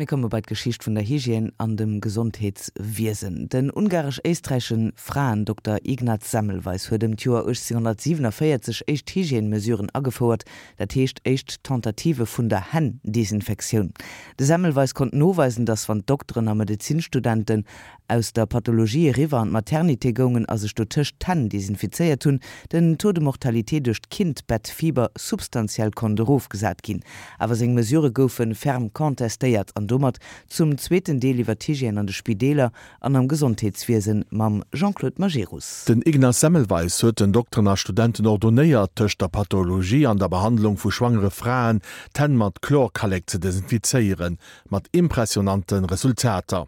Mir komme bei d'Geschicht vun der Hygiène an dem Gesondheetswiesen. Den ungaresch-éisträichesche Fraendokter Ignaz Semmelweis huet ëm d'Joer 1847 éischt Hygiène-Mesuren agefouert, dat heescht éischt Tentative vun der Hänn-Desinfektioun. De Semmelweis konnt noweisen, datt wann d'Dokteren a Medezinstudenten aus der Pathologie eriwwer an d'Maternité goungen a sech dotëscht d'Hänn desinfizéiert hunn, den Taux de mortalité duerch d'Kindbettfieber substantiell konnt erofgesat ginn. Awer seng Mesurë goufe ferm contestéiert an domat zum zweeten Deel iwwer d'Hygiène an de Spideeler an am Gesondheetswiesen mam Jean-Claude Majerus. Den Ignaz Semmelweis huet den Dokteren a Studenten ordonéiert, tëscht der Pathologie an der Behandlung vu schwangere Fraen d'Hänn mat Chlorkallek ze desinfizéieren, mat impressionante Resultater,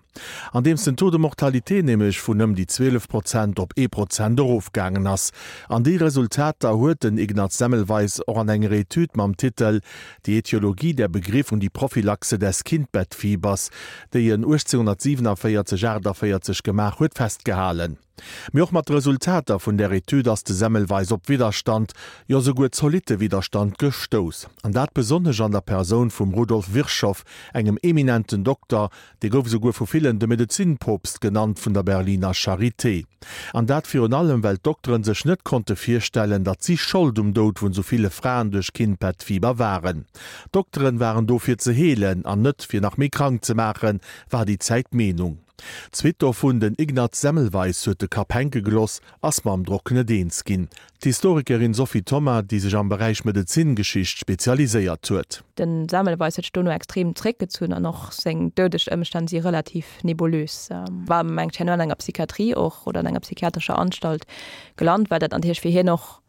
andeems den Taux de mortalité nämlech vun ëm déi 12 Prozent op ee Prozent erofgaangen ass. An déi Resultater huet den Ignaz Semmelweis och an enger Etüd mam Titel Die Ätiologie der Begriff und die Prophylaxe des Kindbettfiebers, déi en 1847, 48 gemaach huet, festgehalen. Mee och mat de Resultater vun där Etüd ass de Semmelweis op Widderstand, jo souguer zolitte Widderstand gestouss. An dat besonnesch an der Persoun vum Rudolf Virchow, engem eminenten Dokter, dee gouf esouguer vu villen de Medezinpoopst genannt vun der Berliner Charité. An dat virun allem, well d'Dokteren sech net konnte virstellen, datt si Schold um Doud vun sou ville Fraen duerch Kindbettfieber waren. D'Dokteren waren do fir ze heelen an net fir nach méi krank ze maachen, war déi Zäit d'Meenung. D'Suite dovun, den Ignaz Semmelweis huet de Kapp hänke geloss, ass mam Drock net eens ginn. D'Historikerin Sophie Thoma, déi sech am Beräich Medezingeschicht spezialiséiert huet. De Semmelweis huet sech dono extrem zréckgezunn an och seng doudeg Ëmstänn si relativ nebulös. War mengt herno an enger Psychiatrie och oder an enger psychiatrescher Anstalt gelant, well dat natierlech fir hien och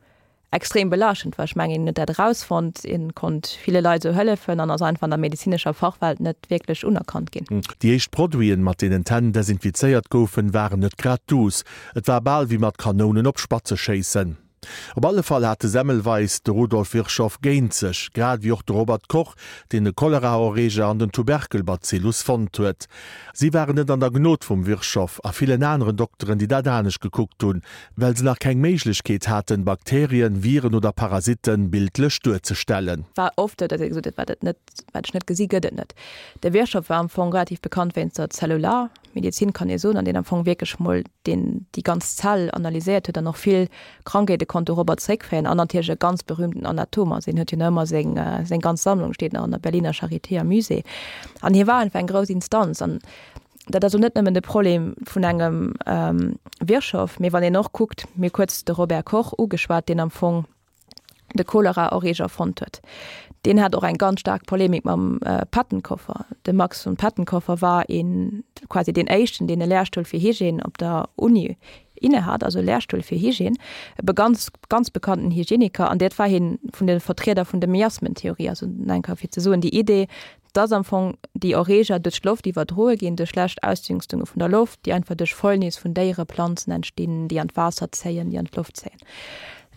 extrem belaaschtend war. Ech mengen, hien huet dat erausfonnt, hien konnt ville Leit esou hëllefen an ass einfach an der medezinescher Fachwelt net wierklech unerkannt ginn. Déi éischt Produiten, mat deenen d'Hänn desinfizéiert goufen, waren net grad duuss. Et war bal wéi mat Kanounen op Spatze schéissen. Op alle Fall hat de Semmelweis de Rudolf Virchow géint sech, grad ewéi och de Robert Koch, deen de Choleraerreger an den Tuberkelbazillus fonnt huet. Si waren net an der Gnod vum Virchow a villen aneren Dokteren, déi dat anescht gekuckt hunn, well se nach keng Méiglechkeet haten, Bakterien, Viren oder Parasitten bildlech duerzestellen. War oft esou, datt ee gesot huet, wat et net, wat ech net gesi gëtt et net. De Virchow war am Fong relativ bekannt wéinst der Zellularmedizin, kann ee soen, an deen am Fong wierklech mol deen déi ganz Zell analyséiert huet an och vill Krankheete konnt dorobber zréckféieren an natierlech e ganz berühmten Anatom ass. Hien huet jo nach ëmmer seng seng ganz Sammlung steet nach an der Berliner Charité am Musée. An hie war einfach eng grouss Instanz an Dat ass och net nëmmen de Problem vun engem Virchow, mee wann een och kuckt, mir hu kuerz de Robert Koch ugeschwat, deen am Fong de Choleraerreger fonnt huet, deen hat och eng ganz staark Polemik mam Pettenkofer. De Max von Pettenkofer war een, quasi deen éischten, deen e Lehrstuhl fir Hygiène op der Uni innehat, also e Lehrstuhl fir Hygiène, e ganz, ganz bekannten Hygieniker, an dat war hien vun de Vertrieder vun de Miasmentheorie, also eng Kéier fir ze soen, déi Idee, dass am Fong déi Erreeger duerch d'Loft iwwerdroe ginn, duerch schlecht Ausdünstunge vun der Loft, déi einfach duerch Fäulnis vun Déiere, Planzen entstinn, déi an d'Waasser zéien, déi an d'Loft zéien.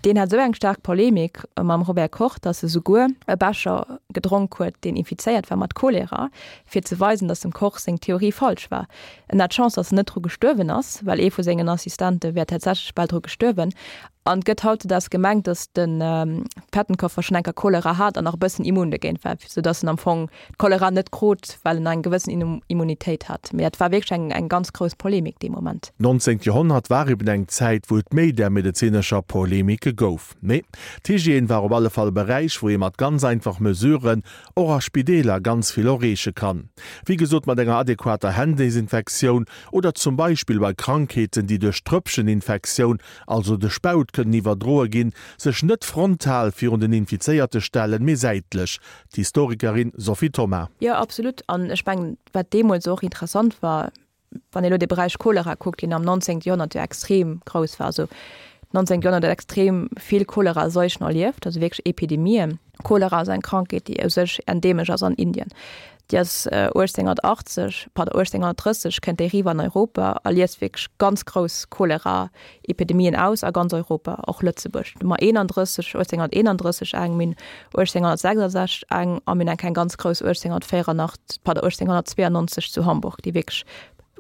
Deen hat esou eng staark Polemik mam Robert Koch, dass e souguer e Becher gedronk huet, deen infizéiert war mat Cholera, fir ze weisen, dass dem Koch seng Theorie falsch war. En hat Chance, dass en net dru gestuerwen ass, well ee vu sengen Assistente wär tatsächlech bal dru gestuerwen. An et gëtt hautzedags gemengt, datt de Pettenkofer schonn eng Kéier Cholera hat an nach e bëssen immun dogéint war, sou datt en am Fong d'Cholera net krut, well en eng gewëssen Immunitéit hat. Mee dat war wierklech eng eng ganz grouss Polemik dee Moment. D'nonzéngt Joerhonnert war eben eng Zäit, wou et méi där medezinescher Polemike gouf. Mee d'Hygiène war op alle Fall e Beräich, wou ee mat ganz einfach Mesuren och a Spideeler ganz vill erreeche kann. Wéi gesot mat enger adequater Hänndesinfektioun oder zum Beispill bei Krankheeten, déi duerch Tröpfcheninfektioun also de Spaut, kënnen iwwerdroe ginn, sech net frontal virun den Infizéierte stellen, mee säitlech. D'Historikerin Sophie Thoma. Jo, absolut. An ech mengen, wat deemools och interessant war, wann ee lo de Beräich Cholera kuckt, deen am 19. Joerhonnert jo extrem grouss war, also 19. Joerhonnert huet extrem vill Choleraseuchen erlieft, also wierklech Epidemien. Cholera ass eng Krankheet, déi u sech endeemesch ass an Indien. Déi ass 1880, pardon, 1830 kënnt déi eriwwer an Europa a liest wierklech ganz grouss Cholera-Epidemien aus a ganz Europa, och Lëtzebuerg. Do hu mer 31, 1831 eng, mir hunn 1866 eng a mir hunn eng eng ganz grouss 1884, pardon, 1892 zu Hamburg, déi wierklech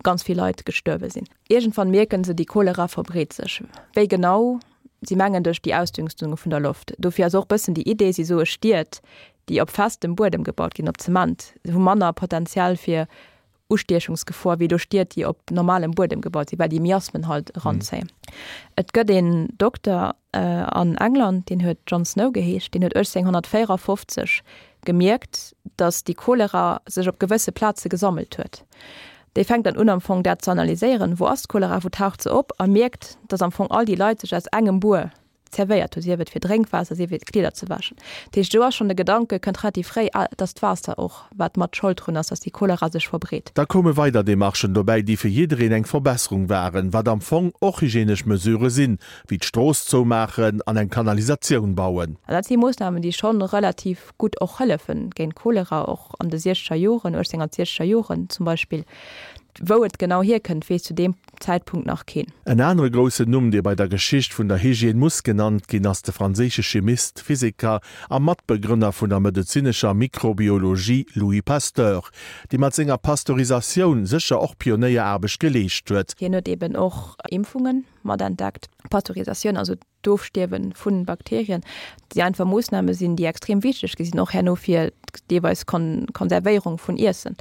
ganz vill Leit gestuerwe sinn. Iergendwann mierken se, déi Cholera verbreet sech. Wéi genau? Si mengen duerch déi Ausdünstunge vun der Loft. Dofir ass och bëssen déi Idee, si soe Stied. déi op festem Buedem gebaut ginn, op Zement, hu manner Potential fir Ustiechungsgefor wéi elo Stied, déi op normalem Buedem gebaut sinn, well déi Miasmen halt eranzéien. Et gëtt een Dokter an England, deen huet John Snow geheescht, deen huet 1854 gemierkt, datt déi Cholera sech op gewësse Plaze gesammelt huet. Dee fänkt dann un am Fong dat ze analyséieren, wou ass d'Cholera, wou taucht se op, a mierkt, datt am Fong all déi Leit sech aus engem Buer zerwéiert hu, sief et fir Drénkwaasser, sief et Kleeder ze wäschen. Dat heescht, do ass schonn de Gedanke, kënnt relativ fréi, ah, et ass d'Waasser och, wat mat Schold drun ass, datt déi Cholera sech verbreet. Da koume weider Demarchen dobäi, déi fir jiddereen eng Verbesserung waren, wat am Fong och hygienesch Mesurë sinn, wéi d'Strooss zoumaachen an eng Kanalisatioun bauen. An dat si Moossnamen, déi schonn relativ gutt och hëllefen géint Cholera, och an de siechzeger Joren, 1860er Joren zum Beispill. Wou et genau hierkënnt, weess zu deem Zäitpunkt nach keen. En anere groussen Numm, dee bei der Geschicht vun der Hygiène muss genannt ginn, ass de franséische Chimist, Physiker a Matbegrënner vun der medezinescher Mikrobiologie Louis Pasteur, dee mat senger Pasteurisatioun sécher och Pionéieraarbecht geleescht huet. Hien huet eben och Impfungen matentdeckt. Pasteurisatioun, also d'Ofstierwe vu Bakterien, déi einfach Moossname sinn, déi extrem wichteg gi sinn, och herno fir deelweis Konservéierung vun Iessen.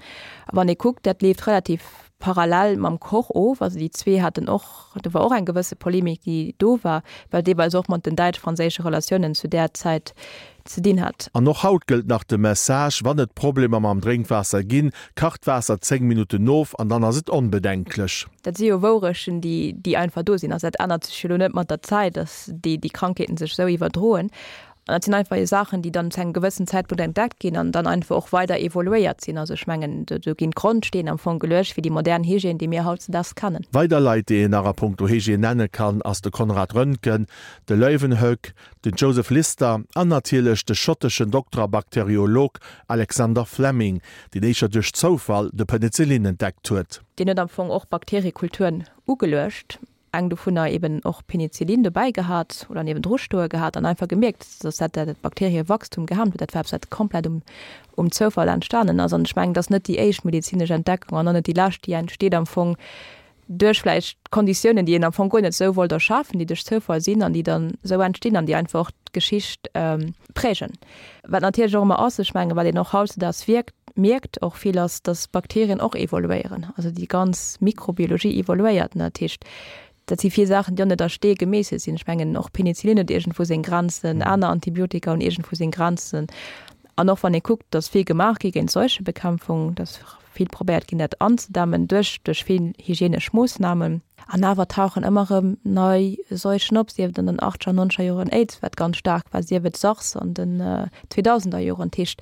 A wann ee kuckt, dat leeft relativ parallel mam Koch of. Also déi zwee haten och, do war och eng gewësse Polemik, déi do war, well deelweis och mat den däitsch-franséische Relatiounen zu där Zäit ze dinn hat. An och haut gëllt nach de Message, Wann et Problemer mam Drénkwaasser ginn, kacht d'Waasser 10 Minutten of an dann ass et onbedenklech. Dat si jo Wourechten, déi, déi einfach do sinn. Also dat ännert sech jo elo net mat der Zäit, dass déi, déi Krankheeten sech esou iwwerdroen. An dat sinn einfach jo Saachen, déi dann zu engem gewëssen Zäitpunkt entdeckt ginn an dann einfach och weider evoluéiert sinn. Also ech mengen, do, do ginn d'Grondsteen am Fong geluecht fir déi modern Hygiène, déi mir hautzedaags kennen. Weider Leit, déi een nach a punkto Hygiène nenne kann, ass de Konrad Röntgen, de Leeuwenhoek, den Joseph Lister an natierlech de schotteschen Dokter a Bakteriolog Alexander Fleming, deen éischer duerch Zoufall de Penicillin entdeckt huet. Deen huet am Fong och Bakteriekulturen ugeluecht, eng dovunner eben och Penicillin dobäi gehat oder niewendru stoe gehat an einfach gemierkt, dass dat dat Bakteriewachstum gehemmt huet. Dat war eppes, wat komplett um um Zoufall entstanen ass. An ech mengen, et ass net déi éischt medezinesch Entdeckung an och net déi lescht, déi entsteet am Fong duerch vläicht Konditiounen, déi een am Fong guer net esou wollt erschafen, déi duerch Zoufall sinn an déi dann esou entstinn an déi einfach och d'Geschicht prägen. Wat natierlech och ëmmer ass, ech mengen, wat een och hautzedaags wierkt, mierkt och vill, ass, datt Bakterien och evoluéieren. Also déi ganz Mikrobiologie evoluéiert. Dat heescht, dat si vill Saachen, déi och net a Stee gemeesselt sinn. Ech mengen, och Penicillin huet iergendwou seng Grenzen, aner Antibiotika hunn iergendwou seng Grenzen. An och wann ee kuckt, datt vill gemaach gi géint Seuchebekämpfung, datt vill probéiert ginn, dat anzedämmen duerch duerch vill hygienesch Moossnamen. An awer tauchen ëmmer erëm nei Seuchen op, sief et an den achtzeger, nonzeger Joren Aids, wat ganz staark war, sief et SARS an den zweedausender Joren. Dat heescht,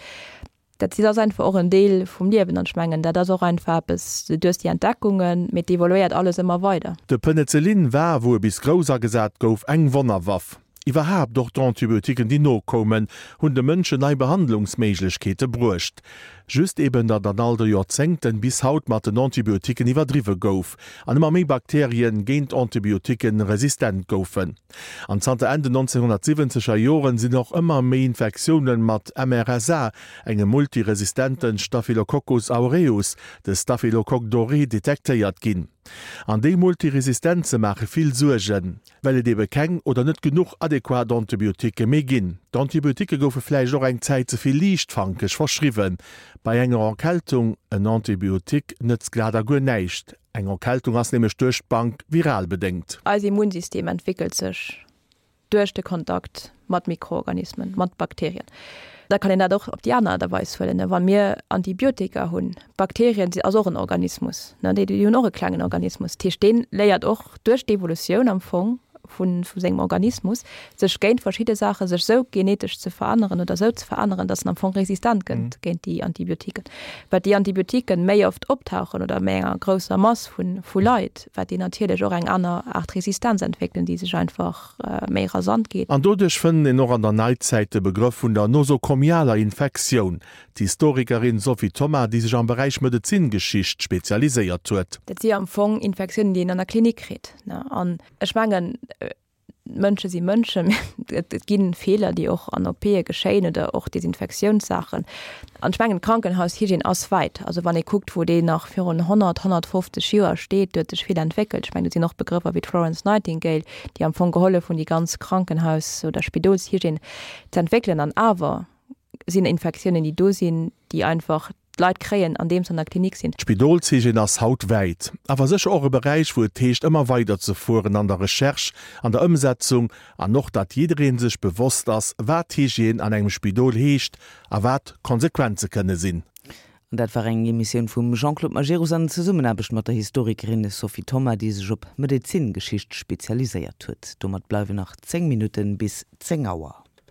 dat si ass einfach och en Deel vum Liewen. An ech mengen, dat ass och einfach eppes, du hues déi Entdeckungen, mee et evoluéiert alles ëmmer weider. De Penicillin war, wou e bis grouss agesat gouf, eng Wonnerwaff. Iwwerhaapt och d'Antibiotiquen, déi nokoumen, hunn de Mënschen nei Behandlungsméiglechkeete bruecht. Just eben, datt an all de Joerzéngten bis haut mat den Antibiotiquen iwwerdriwwe gouf an ëmmer méi Bakterien géint Antibiotiquen resistent goufen. An zanter Enn den 1970 er Joren sinn och ëmmer méi Infektiounen mat MRSA, engem multiresistenten Staphylococcus aureus, de Staphylocoque doré, detektéiert ginn. An déi Multiresistenze maache vill Suergen. Well et ebe keng oder net genuch adequat Antibioticke méi ginn. D'Antibioticke goufe vläicht och eng Zäit ze vill liichtfankeg verschriwwen. Bei enger Erkältung en Antibiotique nëtzt glat a guer näischt. Eng Erkältung ass nämlech duerch d'Bank viral bedéngt. Eis Immunsystem entwéckelt sech duerch de Kontakt mat Mikroorganismen, mat Bakterien. Da kann een dat och op déi aner Aart a Weis huelen. Wa mir Antibiotika hunn, Bakterien si ass och en Organismus, ne, déi hunn och e klengen Organismus. Dat heescht, dee léiert och duerch d'Evolutioun am Fong vu vu sengem Organismus, sech géint verschidde Saache sech sou genetesch ze veränneren oder sou ze veränneren, datt en am Fong resistent gëtt géint déi Antibiotiken. Wat déi Antibiotiken méi oft optauchen oder méi enger grousser Mass vu vu Leit, wat déi natierlech och eng aner Aart Resistenz entwéckelen, déi sech einfach méi rasant geet. An doduerch fënnt een och an der Neizäit de Begrëff vun der nosokomialer Infektioun. D'Historikerin Sophie Thoma, déi sech am Beräich Medezingeschicht spezialiséiert huet. Dat si am Fong Infektiounen, déi een an der Klinik kritt. An ech mengen, Mënsche si Mënschen, et gi Feeler, déi och an OPe geschéien oder och Desinfektiounssaachen. An ech mengen, d'Krankenhaushygiène ass wäit. Also wann ee kuckt, wou déi nach virun 100, 150 Joer steet, do huet sech vill entwéckelt. Ech mengen, do sinn och Begrëffer wéi d'Florence Nightingale, déi am Fong gehollef hunn, déi ganz Krankenhaus oder Spidolshygiène ze entwéckelen. An awer. sinn Infektiounen, déi do sinn, déi einfach d'Leit kréien, andeem se an der Klinik sinn. D'Spidolshygiène ass haut wäit, awer sécher och e Beräich, wou et heescht, ëmmer weider ze fueren an der Recherche, an der Ëmsetzung an och, datt jidderee sech bewosst ass, wat Hygiène an engem Spidol heescht a wat d'Konsequenze kënne sinn. An dat war eng Emissioun vum Jean-Claude Majerus an Zesummenaarbecht mat der Historikerin Sophie Thoma, déi sech op Medezingeschicht spezialiséiert huet. Domat bleiwen nach 10 Minutten bis 10 Auer.